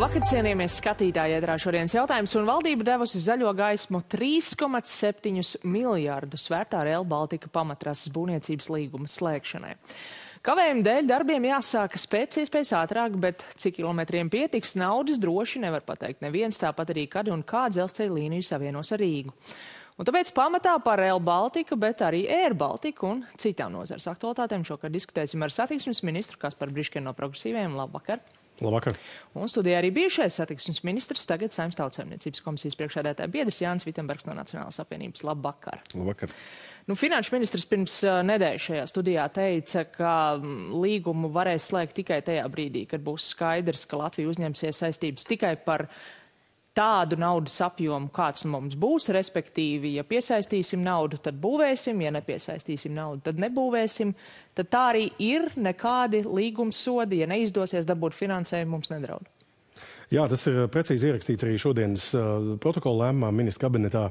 Labvakar, cienījamies skatītāji, ētrā šodienas jautājums, un valdība devusi zaļo gaismu 3,7 miljārdus vērtā Rail Baltica pamatrases būvniecības līguma slēgšanai. Kavējuma dēļ darbiem jāsākas pēc iespējas ātrāk, bet cik kilometriem pietiks naudas droši nevar pateikt neviens, tāpat arī kad un kā dzelzceļa līniju savienos ar Rīgu. Un tāpēc pamatā par Rail Baltica, bet arī Air Baltica un citām nozares aktualitātēm šokar diskutēsim ar satiksmes ministru Kasparu Briškenu no Progresīviem. Labvakar! Labvakar. Un studijā arī bijušais satiksmes ministrs, tagad Saeimas Tautsaimniecības komisijas priekšsēdētāja biedrs Jānis Vitsenbergs no Nacionālās apvienības. Labvakar. Labvakar. Finanšu ministrs pirms nedēļas šajā studijā teica, ka līgumu varēs slēgt tikai tajā brīdī, kad būs skaidrs, ka Latvija uzņemsies saistības tikai par tādu naudas apjomu, kāds mums būs, respektīvi, ja piesaistīsim naudu, tad būvēsim, ja nepiesaistīsim naudu, tad nebūvēsim, tad tā arī ir, nekādi līgums sodi, ja neizdosies dabūt finansējumu, mums nedraud. Jā, tas ir precīzi ierakstīts arī šodienas protokola lēmumā ministra kabinetā,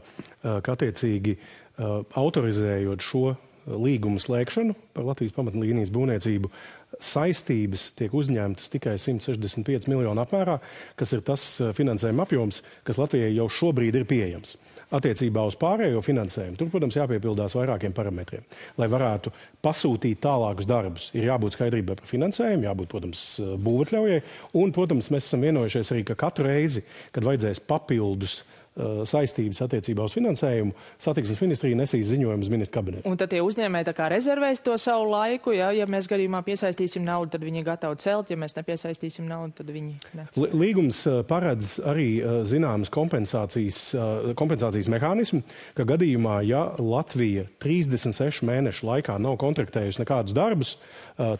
ka attiecīgi autorizējot šo līgumu slēgšanu par Latvijas pamatlīnijas būvniecību, saistības tiek uzņemtas tikai 165 miljonu apmērā, kas ir tas finansējuma apjoms, kas Latvijai jau šobrīd ir pieejams. Attiecībā uz pārējo finansējumu, tur, protams, jāpiepildās vairākiem parametriem. Lai varētu pasūtīt tālākus darbus, ir jābūt skaidrībai par finansējumu, jābūt, protams, būvatļaujai, un, protams, mēs esam vienojušies arī, ka katru reizi, kad vajadzēs papildus saistības attiecībā uz finansējumu, satiksmes ministrija nesīs ziņojumus ministra kabinetu. Un tad tie uzņēmēji tā kā rezervēs to savu laiku, ja mēs gadījumā piesaistīsim naudu, tad viņi gatavi celt, ja mēs nepiesaistīsim naudu, tad viņi necelt. Līgums paredz arī zināmas kompensācijas mehānismu, ka gadījumā, ja Latvija 36 mēnešu laikā nav kontraktējusi nekādus darbus,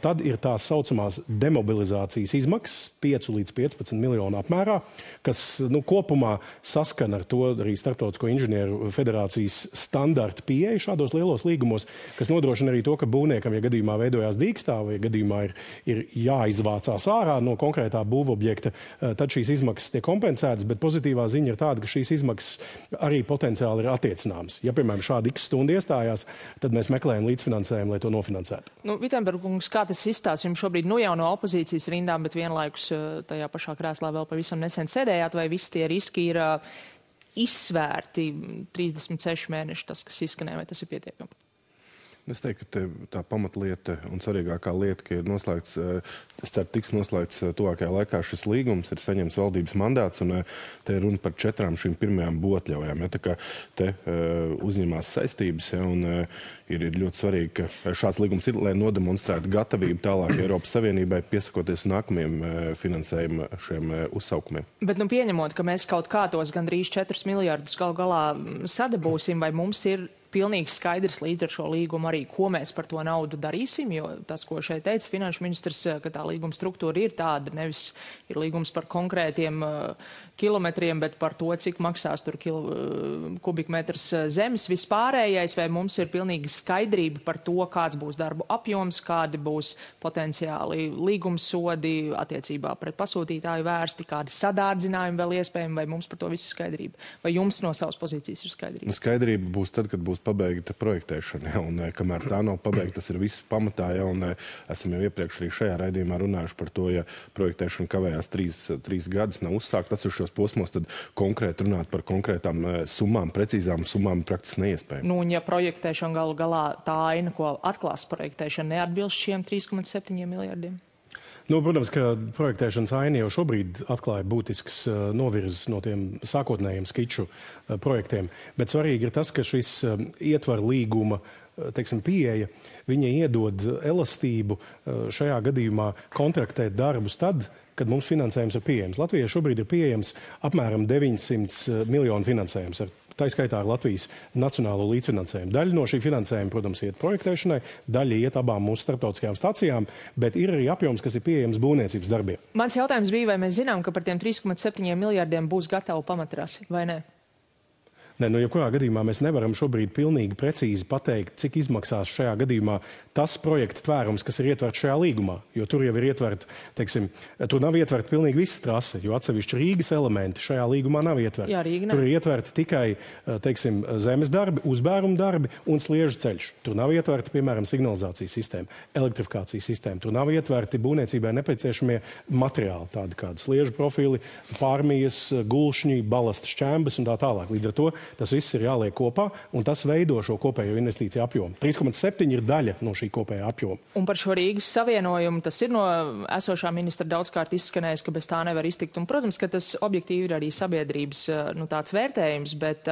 tad ir tās saucamās demobilizācijas izmaksas 5 līdz 15 miljonu apmērā, kas kopumā saskana ar to arī Starptautisko inženieru federācijas standarta pieeja šādos lielos līgumos, kas nodrošina arī to, ka būvniekam, ja gadījumā veidojās dīkstāve, vai gadījumā ir jāizvācās ārā no konkrētā būvobjekta, tad šīs izmaksas tiek kompensētas, bet pozitīvā ziņa ir tāda, ka šīs izmaksas arī potenciāli ir attiecināmas. Ja, piemēram, šādi x stundu iestājās, tad mēs meklējam līdzfinansējumu, lai to nofinansētu. Vitsenbergs, kā tas izstāsta jums šobrīd jau no opozīcijas rindām, bet vienlaikus tajā pašā krēslā vēl pavisam nesen sēdējāt, vai visi tie riski ir izsvērti 36 mēneši, tas, kas izskanēja, vai tas ir pietiekami? Es teiktu, ka tā pamatlieta un svarīgākā lieta, ka ir noslēgts, es ceru, tiks noslēgts tuvākajā laikā šis līgums, ir saņemts valdības mandāts, un te ir runa par 4 šīm pirmajām būvatļaujām. Ja, tā kā te uzņemās saistības, ja, un ir ļoti svarīgi, ka šāds līgums ir, lai nodemonstrētu gatavību tālāk Eiropas Savienībai piesakoties nākamajiem finansējuma šiem uzsaukumiem. Bet pieņemot, ka mēs kaut kā tos gandrīz 4 miljardus galu galā sadabūsim, vai mums ir pilnīgi skaidrs līdz ar šo līgumu arī, ko mēs par to naudu darīsim, jo tas, ko šeit teica finanšu ministrs, ka tā līguma struktūra ir tāda, nevis ir līgums par konkrētiem kilometriem, bet par to, cik maksās tur kubikmetrs zemes vispārējais, vai mums ir pilnīgi skaidrība par to, kāds būs darbu apjoms, kādi būs potenciāli līgumsodi attiecībā pret pasūtītāju vērsti, kādi sadārdzinājumi vēl iespējami, vai mums par to visu skaidrība? Vai jums no savas pozīcijas ir skaidrība? Skaidrība būs tad, kad būs pabeigta projektēšana, un kamēr tā nav pabeigta, tas ir viss pamatā, ja, un esam jau iepriekš arī šajā raidījumā runājuši par to, ja projektēšana kavējās 3 gadus, nav uzsākt atsevišķos posmos, tad konkrēti runāt par konkrētām summām, precīzām summām praktiski neiespējami. Un ja projektēšana galu galā tā aina, ko atklās projektēšana, neatbilst šiem 3,7 miljardiem? Protams, ka projektēšanas aina jau šobrīd atklāja būtisks novirzes no tiem sākotnējiem skiču projektiem, bet svarīgi ir tas, ka šis ietvar līguma pieeja, viņa iedod elastību šajā gadījumā kontraktēt darbus tad, kad mums finansējums ir pieejams. Latvijai šobrīd ir pieejams apmēram 900 miljonu finansējums tā skaitā ar Latvijas nacionālo līdzfinansējumu. Daļa no šī finansējuma, protams, iet projektēšanai, daļa iet abām mūsu starptautiskajām stacijām, bet ir arī apjoms, kas ir pieejams būvniecības darbiem. Mans jautājums bija, vai mēs zinām, ka par tiem 3,7 miljardiem būs gatava pamatrasi, vai ne? Jebkurā gadījumā mēs nevaram šobrīd pilnīgi precīzi pateikt, cik izmaksās šajā gadījumā tas projekta tvērums, kas ir ietverts šajā līgumā. Jo tur jau ir ietverta, tur nav ietverta pilnīgi visa trase, jo atsevišķi Rīgas elementi šajā līgumā nav ietverti. Jā, tur ir ietverti tikai, zemes darbi, uzbēruma darbi un sliežu ceļš. Tur nav ietverta, piemēram, signalizācijas sistēma, elektrifikācijas sistēma. Tur nav ietverti būvniecībai nepieciešamie materiāli, tādi kādi sliežu profili, pārmijas, gulšņi, balasta šķembas un tā tālāk. Līdz ar to tas viss ir jāliek kopā, un tas veido šo kopējo investīciju apjomu. 3,7 ir daļa no šī kopējā apjoma. Un par šo Rīgas savienojumu, tas ir no esošā ministra daudzkārt izskanējis, ka bez tā nevar iztikt. Un, protams, ka tas objektīvi ir arī sabiedrības tāds vērtējums, bet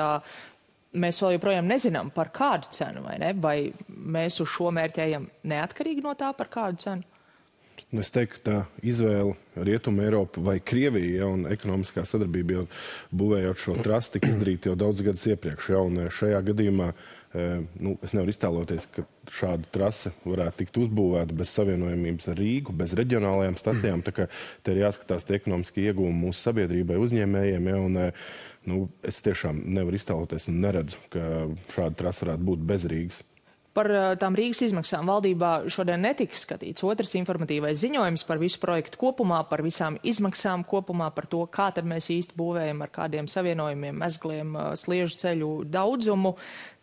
mēs vēl joprojām nezinām par kādu cenu, vai ne? Vai mēs uz šo mērķi ejam neatkarīgi no tā, par kādu cenu? Es teiktu, ka tā izvēle Rietuma Eiropa vai Krievija, un ekonomiskā sadarbība jau būvējot šo trasi tika izdarīta jau daudz gadus iepriekš. Un šajā gadījumā es nevaru iztēloties, ka šāda trase varētu tikt uzbūvēta bez savienojumības ar Rīgu, bez reģionālajām stacijām. Tā kā te ir jāskatās tie ekonomiski ieguvumi mūsu sabiedrībai, uzņēmējiem. Es tiešām nevaru iztēloties un neredzu, ka šāda trase varētu būt bez Rīgas. Par tām Rīgas izmaksām valdībā šodien netiks skatīts otrs informatīvais ziņojums par visu projektu kopumā, par visām izmaksām kopumā, par to, kā tad mēs īsti būvējam, ar kādiem savienojumiem, mezgliem, sliežu ceļu daudzumu.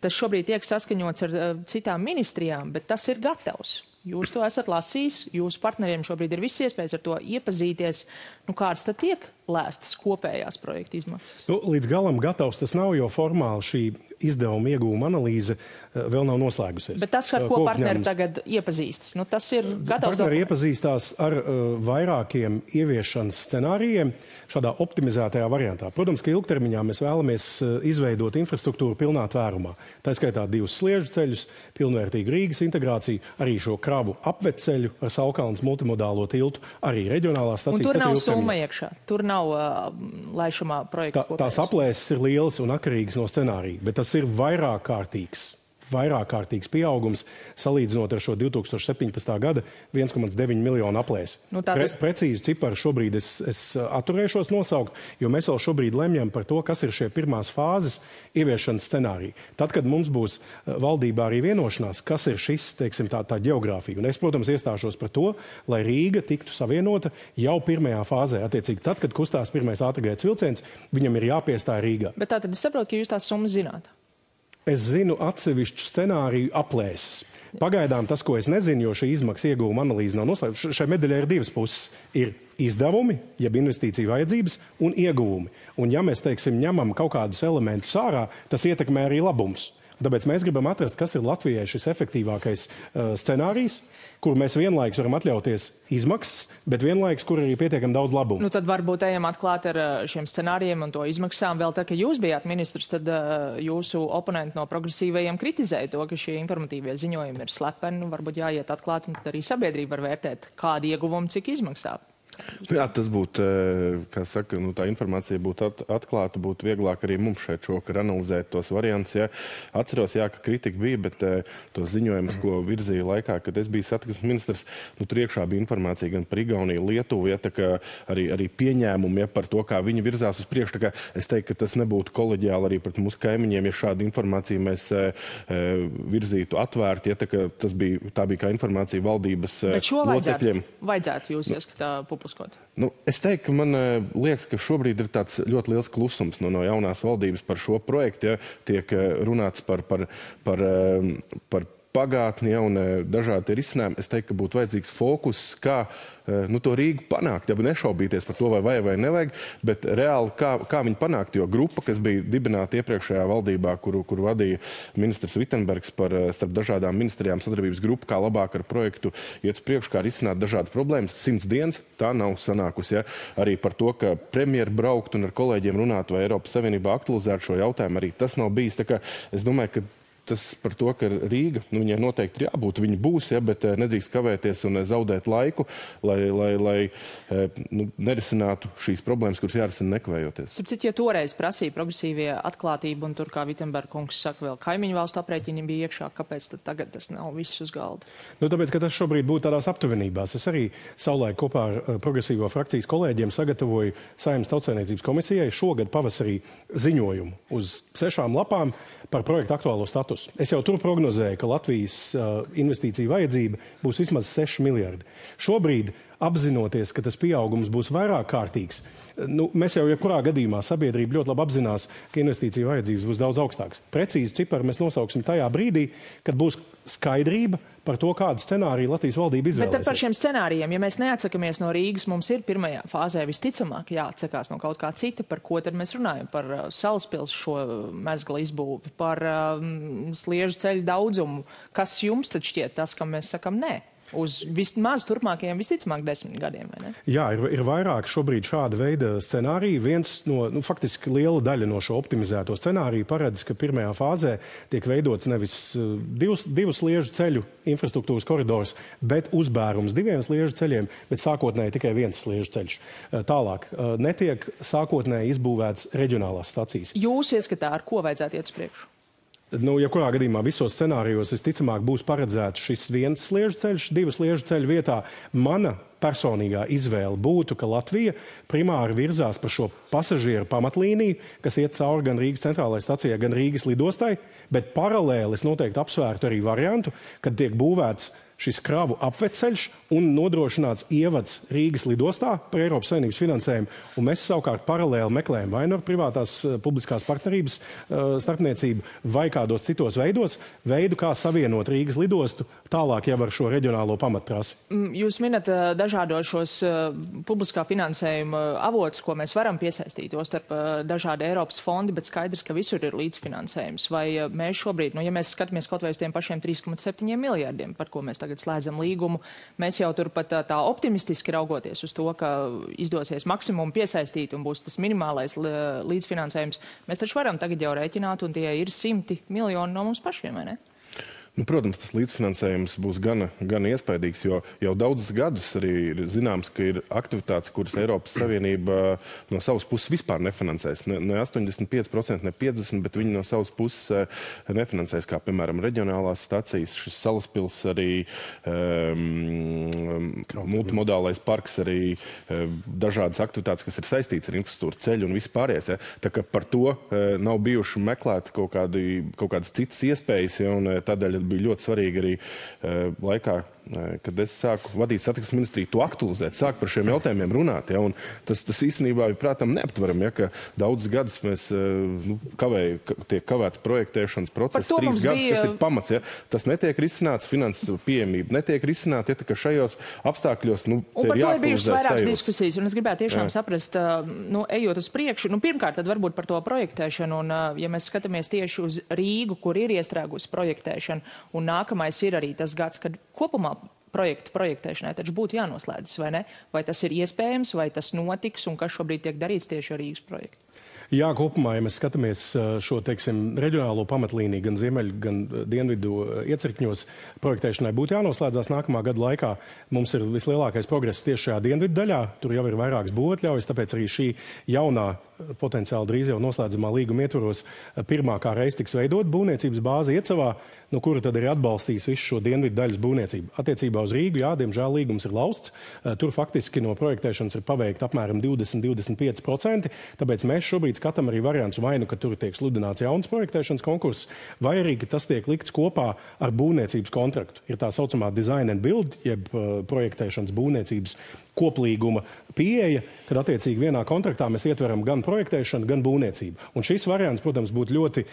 Tas šobrīd tiek saskaņots ar citām ministrijām, bet tas ir gatavs. Jūs to esat lasījis, jūsu partneriem šobrīd ir viss iespējas ar to iepazīties. Kādas tad tiek lēstas kopējās projekta izmaksas? Līdz galam gatavs tas nav, jo formāli šī izdevuma ieguvuma analīze vēl nav noslēgusies. Bet tas, ar ko partneri tagad iepazīstas, tas ir gatavs. Partneri iepazīstās ar vairākiem ieviešanas scenārijiem šādā optimizētajā variantā. Protams, ka ilgtermiņā mēs vēlamies izveidot infrastruktūru pilnā tvērumā. Tā skaitā 2 sliežu ceļus, pilnvērtīgu Rīgas integrāciju, arī šo kravu apveceļu ar Saukalnes multimodālo tiltu, arī reģionālās stacijas. Un tur nav summa iekšā, tur nav laišamā projekta kopējums. Tās aplēses ir lielas un atkarīgas no scenārija, bet tas ir vairākkārtīgs pieaugums salīdzinot ar šo 2017. gada 1,9 miljonu aplēsi. Precīzi ciparu šobrīd es atturēšos nosaukt, jo mēs vēl šobrīd lemjam par to, kas ir šie pirmās fāzes ieviešanas scenāriji. Tad, kad mums būs valdībā arī vienošanās, kas ir šis, tā geogrāfija. Un es, protams, iestāšos par to, lai Rīga tiktu savienota jau pirmajā fāzē. Attiecīgi, tad, kad kustās pirmais ātrgaitas vilciens, viņam ir jāpiestāj Rīgā. Bet tātad es saprotu, ka jūs tās summas zināt. Es zinu atsevišķu scenāriju aplēses. Pagaidām tas, ko es nezinu, jo šī izmaksa ieguvuma analīze nav noslēgta. Šai medaļai ir 2 puses. Ir izdevumi, jeb investīciju vajadzības, un ieguvumi. Un ja mēs, ņemam kaut kādus elementus ārā, tas ietekmē arī labumus. Tāpēc mēs gribam atrast, kas ir Latvijai šis efektīvākais scenārijs, kur mēs vienlaikus varam atļauties izmaksas, bet vienlaikus, kur arī pietiekami daudz labumu. Tad varbūt ejam atklāt ar šiem scenārijiem un to izmaksām. Vēl tā, ka jūs bijāt ministrs, tad jūsu oponenti no progresīvajiem kritizēja to, ka šie informatīvie ziņojumi ir slepeni. Varbūt jāiet atklāt, un tad arī sabiedrība var vērtēt, kādi ieguvumi, cik izmaksā. Jā, tas būtu, kā saka, tā informācija būtu atklāta, būtu vieglāk arī mums šeit šokar analizēt tos variantus. Ja. Atceros, ka kritika bija, bet tos ziņojumus, ko virzīja laikā, kad es biju satiksmes ministrs, tur iekšā bija informācija gan par Igauniju, Lietuvu, tā kā arī pieņēmumi par to, kā viņi virzās uz priekšu. Tā kā es teiktu, ka tas nebūtu koleģiāli arī pret mūsu kaimiņiem, ja šādu informāciju mēs virzītu atvērti. Tā bija kā informācija valdības locekļiem. Bet šo vajadzētu jūs ieskatā publiskot? Es teiktu, ka man liekas, ka šobrīd ir tāds ļoti liels klusums no jaunās valdības par šo projektu. Ja, tiek runāts par pagātni un dažādi risinājumi. Es teiktu, ka būtu vajadzīgs fokus, kā to Rīgu panākt, ja nešaubīties par to, vai nevajag, bet reāli kā viņi panākt, jo grupa, kas bija dibināta iepriekšējā valdībā, kuru vadīja ministrs Vitsenbergs starp dažādām ministrijām sadarbības grupu, kā labāk ar projektu iet uz priekšu, kā risināt dažādas problēmas, 100 dienas, tā nav sanākusi. Ja? Arī par to, ka premjeri braukt un ar kolēģiem runāt, vai Eiropas Savienībā aktualizēt šo jautājumu, arī tas nav bijis. Tā kā es domāju, ka tas par to, ka Rīga, viņai noteikti ir jābūt, viņi būs, bet nedrīkst kavēties un zaudēt laiku, lai nerisinātu šīs problēmas, kuras jārisina nekavējoties. Sapratu, ja toreiz prasīja progresīvie atklātību, un tur, kā Vitsenberga kungs saka, vēl kaimiņu valstu aprēķini bija iekšā, kāpēc tad tagad tas nav viss uz galda? Tāpēc, ka tas šobrīd būtu tādās aptuvenībās. Es arī savulaik kopā ar progresīvo frakcijas kolēģiem sagatavoju Saeimas Tautsaimniecības komisijai šogad pavasarī ziņojumu uz 6 lapām par projektu aktuālo statusu. Es jau tur prognozēju, ka Latvijas investīcija vajadzība būs vismaz 6 miljardi. Šobrīd, apzinoties, ka tas pieaugums būs vairāk kārtīgs, mēs jau jebkurā gadījumā sabiedrība ļoti labi apzinās, ka investīcija vajadzības būs daudz augstākas. Precīzi ciparu mēs nosauksim tajā brīdī, kad būs skaidrība par to, kādu scenāriju Latvijas valdība izvēlēsies. Bet tad par šiem scenārijiem, ja mēs neatsakamies no Rīgas, mums ir pirmajā fāzē visticamāk jāatsakās no kaut kā cita, par ko tad mēs runājam? Par Salaspils šo mezgla izbūvi, par sliežu ceļu daudzumu. Kas jums tad šķiet tas, kam mēs sakam nē? Uz vismaz turpmākajiem visticamāk 10 gadiem, vai ne? Jā, ir vairāk šobrīd šāda veida scenāriju. Viens no, faktiski liela daļa no šo optimizēto scenāriju paredz, ka pirmajā fāzē tiek veidots nevis divus sliežu ceļu infrastruktūras koridors, bet uzbērums 2 sliežu ceļiem, bet sākotnēji tikai 1 sliežu ceļš. Tālāk, netiek sākotnēji izbūvēts reģionālās stacijas. Jūs ieskatā, ar ko vajadzētu iet uz priekšu? Ja kurā gadījumā visos scenārijos visticamāk būs paredzēts šis 1 sliežu ceļš, 2 sliežu ceļu vietā, mana personīgā izvēle būtu, ka Latvija primāri virzās par šo pasažieru pamatlīniju, kas iet cauri gan Rīgas centrālajai stacijai, gan Rīgas lidostai, bet paralēli es noteikti apsvērtu arī variantu, kad tiek būvēts šis kravu apveceļš un nodrošināts ievads Rīgas lidostā par Eiropas Savienības finansējumu, un mēs savukārt paralēli meklējam vai no privātās publiskās partnerības starpniecību vai kādos citos veidu, kā savienot Rīgas lidostu tālāk jau ar šo reģionālo pamattrasi. Jūs minat dažādos šos publiskā finansējuma avotus, ko mēs varam piesaistīt, jo starp dažādi Eiropas fondi, bet skaidrs, ka visur ir līdzfinansējums. Vai mēs šobrīd, ja mēs skatāmies kaut vai uz tiem pašiem 3,7 miljardiem, par ko mēs tagad slēdzam līgumu, mēs jau turpat tā optimistiski raugoties uz to, ka izdosies maksimumu piesaistīt un būs tas minimālais līdzfinansējums, mēs taču varam tagad jau rēķināt, un tie ir 100 miljoni no mums pašiem, vai ne? Protams, tas līdzfinansējums būs gan iespaidīgs, jo jau daudzus gadus arī ir zināms, ka ir aktivitātes, kuras Eiropas Savienība no savas puses vispār nefinansēs. Ne 85%, ne 50%, bet viņi no savas puses nefinansēs, kā piemēram reģionālās stacijas, šis Salaspils arī, multimodālais parks arī, dažādas aktivitātes, kas ir saistītas ar infrastruktūru ceļu un vispārējais. Ja? Tā kā par to nav bijuši meklēt kaut kādas citas iespējas, ja? Un tādēļ bija ļoti svarīgi arī laikā, kad es sāku vadīt satiksmes ministriju, to aktualizēt, sāku par šiem jautājumiem runāt. Ja, un tas īstenībā ir, prātam, neaptveram, ja, ka daudzus gadus mēs tiek kavēts projektēšanas process, 3 gadus, kas ir pamats. Ja. Tas netiek risināts, finanses pieejamība netiek risināta, ja, ka šajos apstākļos un par to ir bijušas vairākas diskusijas, un es gribētu tiešām saprast, ejot uz priekšu, pirmkārt, tad varbūt par to projektēšanu, un ja mēs skatāmies tieši uz Rīgu, kur ir iestrēgusi projektēšana, un nākamais ir arī tas gads, kad kopumā projektēšanai taču būtu jānoslēdzas, vai ne? Vai tas ir iespējams, vai tas notiks, un kas šobrīd tiek darīts tieši ar Rīgas projektu? Jā, kopumā, ja mēs skatāmies šo, reģionālo pamatlīniju gan ziemeļu, gan dienvidu iecirkņos, projektēšanai būtu jānoslēdzās nākamā gada laikā. Mums ir vislielākais progress tieši šajā dienvidu daļā. Tur jau ir vairākas būvatļaujas, tāpēc arī šī jaunā, potenciāli drīz jau noslēdzamā līguma ietvaros pirmā kā reiz tiks veidot būvniecības bāzi Iecavā, no kura tad arī atbalstīs visu šo dienvidu daļas būvniecību. Attiecībā uz Rīgu, jā, diemžēl līgums ir lausts. Tur faktiski no projektēšanas ir paveikta apmēram 20–25%, tāpēc mēs šobrīd skatām arī variants vai nu, ka tur tiek sludināts jauns projektēšanas konkurss, vai arī, ka tas tiek likts kopā ar būvniecības kontraktu. Ir tā saucamā design and build, jeb projektēšanas būvniecības koplīguma pieeja, kad attiecīgi vienā kontraktā mēs ietveram gan projektēšanu, gan būvniecību. Un šis variants, protams, būtu ļoti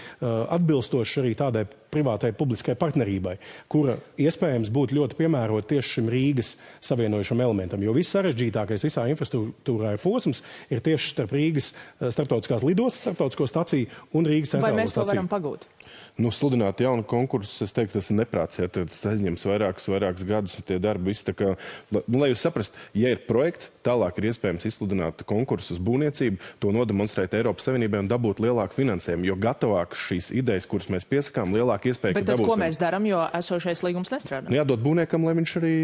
atbilstošs arī tādai privātai publiskai partnerībai, kura iespējams būtu ļoti piemērota tieši šim Rīgas savienojušam elementam. Jo viss sarežģītākais visā infrastruktūrā posms ir tieši starp Rīgas starptautiskās lidostas, starptautisko staciju un Rīgas centrālo staciju. Vai mēs to varam pagūt? Sludināt jaunu konkursu, es teiktu, tas ir neprāts, ja tas aizņems vairākus gadus, tie darbi visi tā kā, lai jūs saprast, ja ir projekts, tālāk ir iespējams izsludināt konkursus būvniecību, to nodemonstrēt Eiropas Savienībai un dabūt lielāku finansējumu, jo gatavāk šīs idejas, kuras mēs piesakām, lielāka iespēja, bet tad, ko mēs darām, jo esošais līgums nestrādā? Jādod būvniekam, lai viņš arī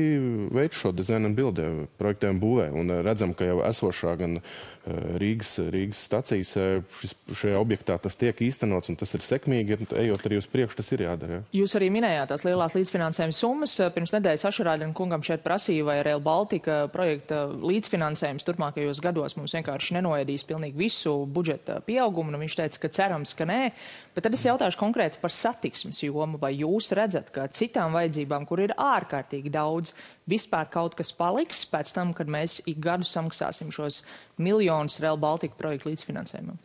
veic šo dizainu un bildē, projektē un būvē. Un redzam, ka jau esošā gan Rīgas stacijas šajā objektā tas tiek īstenots, un tas ir sekmīgi, ejot arī uz priekšu, tas ir jādara. Ja? Jūs arī minējāt tās lielās līdzfinansējuma summas. Pirms nedēļas Ašarādina kungam šeit prasīja, vai Rail Baltica projekta līdzfinansējums turpmākajos gados mums vienkārši nenoēdīs pilnīgi visu budžeta pieaugumu, un viņš teica, ka cerams, ka nē. Bet tad es jautāšu konkrēti par satiksmes jomu, vai jūs redzat, ka citām vajadzībām, kur ir ārkārtīgi daudz, vispār kaut kas paliks pēc tam, kad mēs ik gadu samaksāsim šos miljonus Rail Baltica projektu līdzfinansējumam?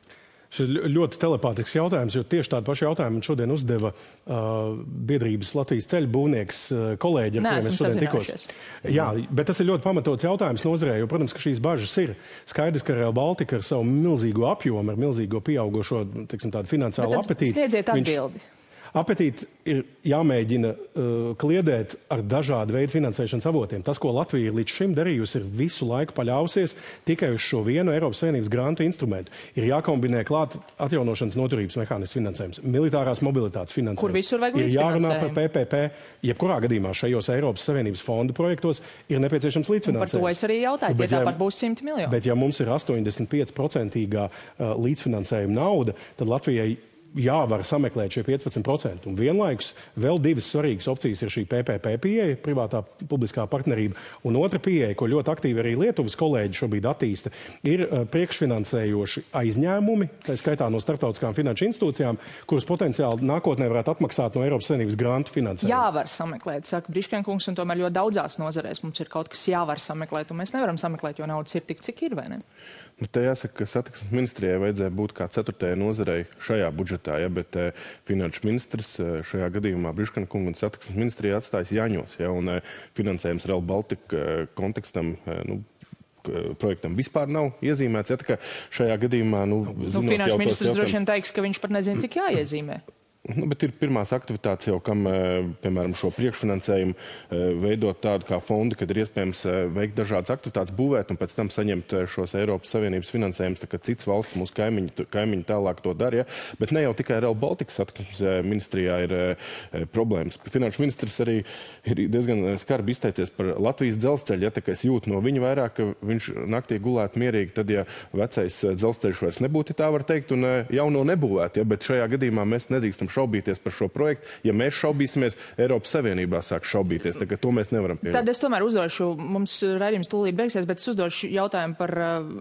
Šis ir ļoti telepātisks jautājums, jo tieši tādu pašu jautājumu šodien uzdeva biedrības Latvijas ceļu būvnieks kolēģi, ar kuriem es šodien tikos. Jā, bet tas ir ļoti pamatots jautājums nozarē, jo, protams, ka šīs bažas ir skaidrs, ka Rail Baltica ar savu milzīgo apjomu, ar milzīgo pieaugušo, teiksim, tādu finansiālu apetīti. Sniedziet atbildi. Apetīti ir jāmēģina kliedēt ar dažādu veidu finansēšanas avotiem. Tas, ko Latvija ir līdz šim darījusi, ir visu laiku paļausies tikai uz šo vienu Eiropas Savienības grantu instrumentu. Ir jākombinē klāt atjaunošanas noturības mehānismu finansējums, militārās mobilitātes finansējums. Kur visur vajag līdzfinansējumu. Ir jārunā par PPP. Jebkurā gadījumā šajos Eiropas Savienības fondu projektos ir nepieciešams līdzfinansējums. Un par to es arī jautāju, ja tāpat būs 100 miljoni. Bet ja mums ir 85% līdzfinansējuma nauda, tad Latvijai jāvar sameklēt šie 15%. Un vienlaikus vēl divas svarīgas opcijas ir šī PPP pieeja, privātā publiskā partnerība, un otra pieeja, ko ļoti aktīvi arī Lietuvas kolēģi šobrīd attīsta, ir priekšfinansējoši aizņēmumi, tā skaitā no starptautiskām finanšu institūcijām, kuras potenciāli nākotnē varētu atmaksāt no Eiropas Savienības grantu finansējumu. Jāvar sameklēt, saka Briškenkungs, un tomēr ļoti daudzās nozarēs mums ir kaut kas jāvar sameklēt, un mēs nevaram sameklēt, jo naudas ir tik, cik ir, vai ne? Nu, te jāsaka, ka satiksmes ministrijai vajadzēja būt kā 4. nozarei šajā budžetā, ja, bet finanšu ministrs šajā gadījumā Briškenkungu un satiksmes ministrijai atstājas Jāņos, ja, un finansējums Rail Baltica kontekstam, projektam vispār nav iezīmēts. Ja, tā kā šajā gadījumā, finanšu ministrs droši vien teiks, ka viņš pat nezina, cik jāiezīmē. Bet ir pirmās aktivitātes jau, kam, piemēram, šo priekšfinansējumu veidot tādu kā fondu, kad ir iespējams veikt dažādas aktivitātes, būvēt un pēc tam saņemt šos Eiropas Savienības finansējumus, tā kā cits valsts, mūsu kaimiņi tālāk to dara. Ja? Bet ne jau tikai Rail Baltica satiksmes ministrijā ir problēmas. Finanšu ministrs arī ir diezgan skarbi izteicies par Latvijas dzelzceļu. Ja, tā kā es jūtu no viņa vairāk, ka viņš naktī gulētu mierīgi, tad, ja vecais dzelzceļš vairs nebūtu, tā var teikt, un jauno nebūvēt. Ja? Bet šajā gadījumā mēs nedrīkstam šaubīties par šo projektu. Ja mēs šaubīsimies, Eiropas Savienībā sāk šaubīties. Tā, to mēs nevaram pieņemt. Tad es tomēr uzdošu, mums raidījums tūlīt beigsies, bet es uzdošu jautājumu par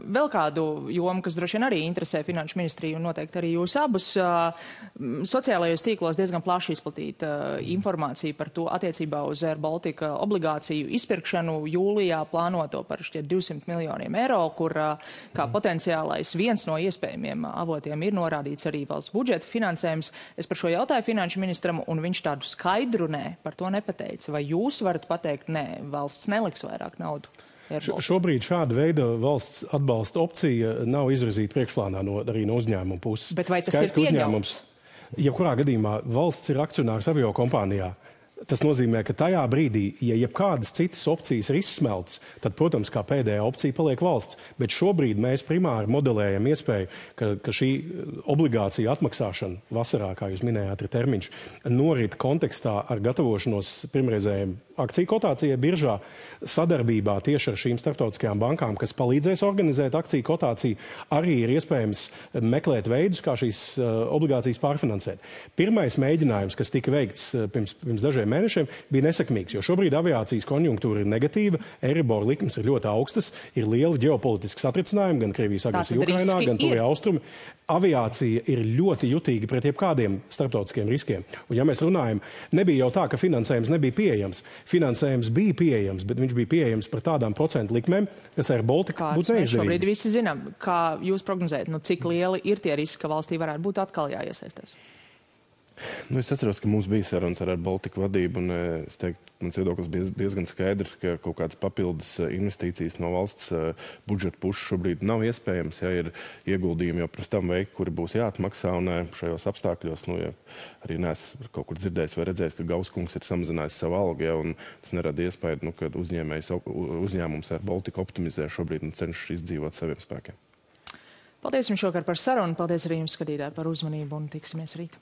vēl kādu jomu, kas droši vien arī interesē finanšu ministriju un noteikti arī jūs abus. Sociālajos tīklos diezgan plaši izplatīta informācija par to attiecībā uz Rail Baltica obligāciju izpirkšanu jūlijā plānoto par šķiet 200 miljoniem eiro, kur kā potenciālais viens no iespējamiem avotiem ir norādīts arī valsts budžeta finansējums. Es par šo jautāju finanšu ministram, un viņš tādu skaidru nē par to nepateica. Vai jūs varat pateikt, nē, valsts neliks vairāk naudu? Šobrīd šāda veida valsts atbalsta opcija nav izvirzīta priekšplānā arī no uzņēmuma puses. Bet vai tas ir pieņemams? Jebkurā gadījumā valsts ir akcionārs aviokompānijā. Tas nozīmē, ka tajā brīdī, ja jebkādas citas opcijas ir izsmeltas, tad, protams, kā pēdējā opcija paliek valsts. Bet šobrīd mēs primāri modelējam iespēju, ka šī obligācija atmaksāšana vasarā, kā jūs minējāt, ir termiņš, norit kontekstā ar gatavošanos pirmreizējiem akciju kotācijai biržā, sadarbībā tieši ar šīm starptautiskajām bankām, kas palīdzēs organizēt akciju kotāciju, arī ir iespējams meklēt veidus, kā šīs obligācijas pārfinansēt. Pirmais mēģinājums, kas tika veikts pirms dažiem mēnešiem, bija nesekmīgs, jo šobrīd aviācijas konjunktūra ir negatīva, Eiribor likmes ir ļoti augstas, ir liela ģeopolitiska satricinājuma, gan Krievijas agresija Ukrainā, gan Tuvie austrumi. Aviācija ir ļoti jutīga pret jebkādiem starptautiskiem riskiem. Un ja mēs runājam, nebija jau tā, ka finansējums nebija pieejams. Finansējums bija pieejams, bet viņš bija pieejams par tādām procentu likmēm, kas ar Baltiku būtu neizdevīgas. Šobrīd visi zinām, kā jūs prognozējat, cik lieli ir tie riski, ka valstī varētu būt atkal jāiesaistās? Es atceros, ka mums bija sarunas ar Baltiku vadību, un es teiktu, mans viedoklis bija diezgan skaidrs, ka kaut kādas papildus investīcijas no valsts budžeta puses šobrīd nav iespējams. Ja ir ieguldījumi jau pirms tam veikti, kuri būs jāatmaksā, un šajos apstākļos, ja arī neesmu kaut kur dzirdējis vai redzējis, ka Gauskungs ir samazinājis savu algu, ja, un tas nerada iespēju, ka uzņēmums ar Baltiku optimizē šobrīd un cenšas izdzīvot saviem spēkiem. Paldies jums šovakar par sarunu, paldies arī jums, skatītāji, par uzmanību un tiksimies rīt.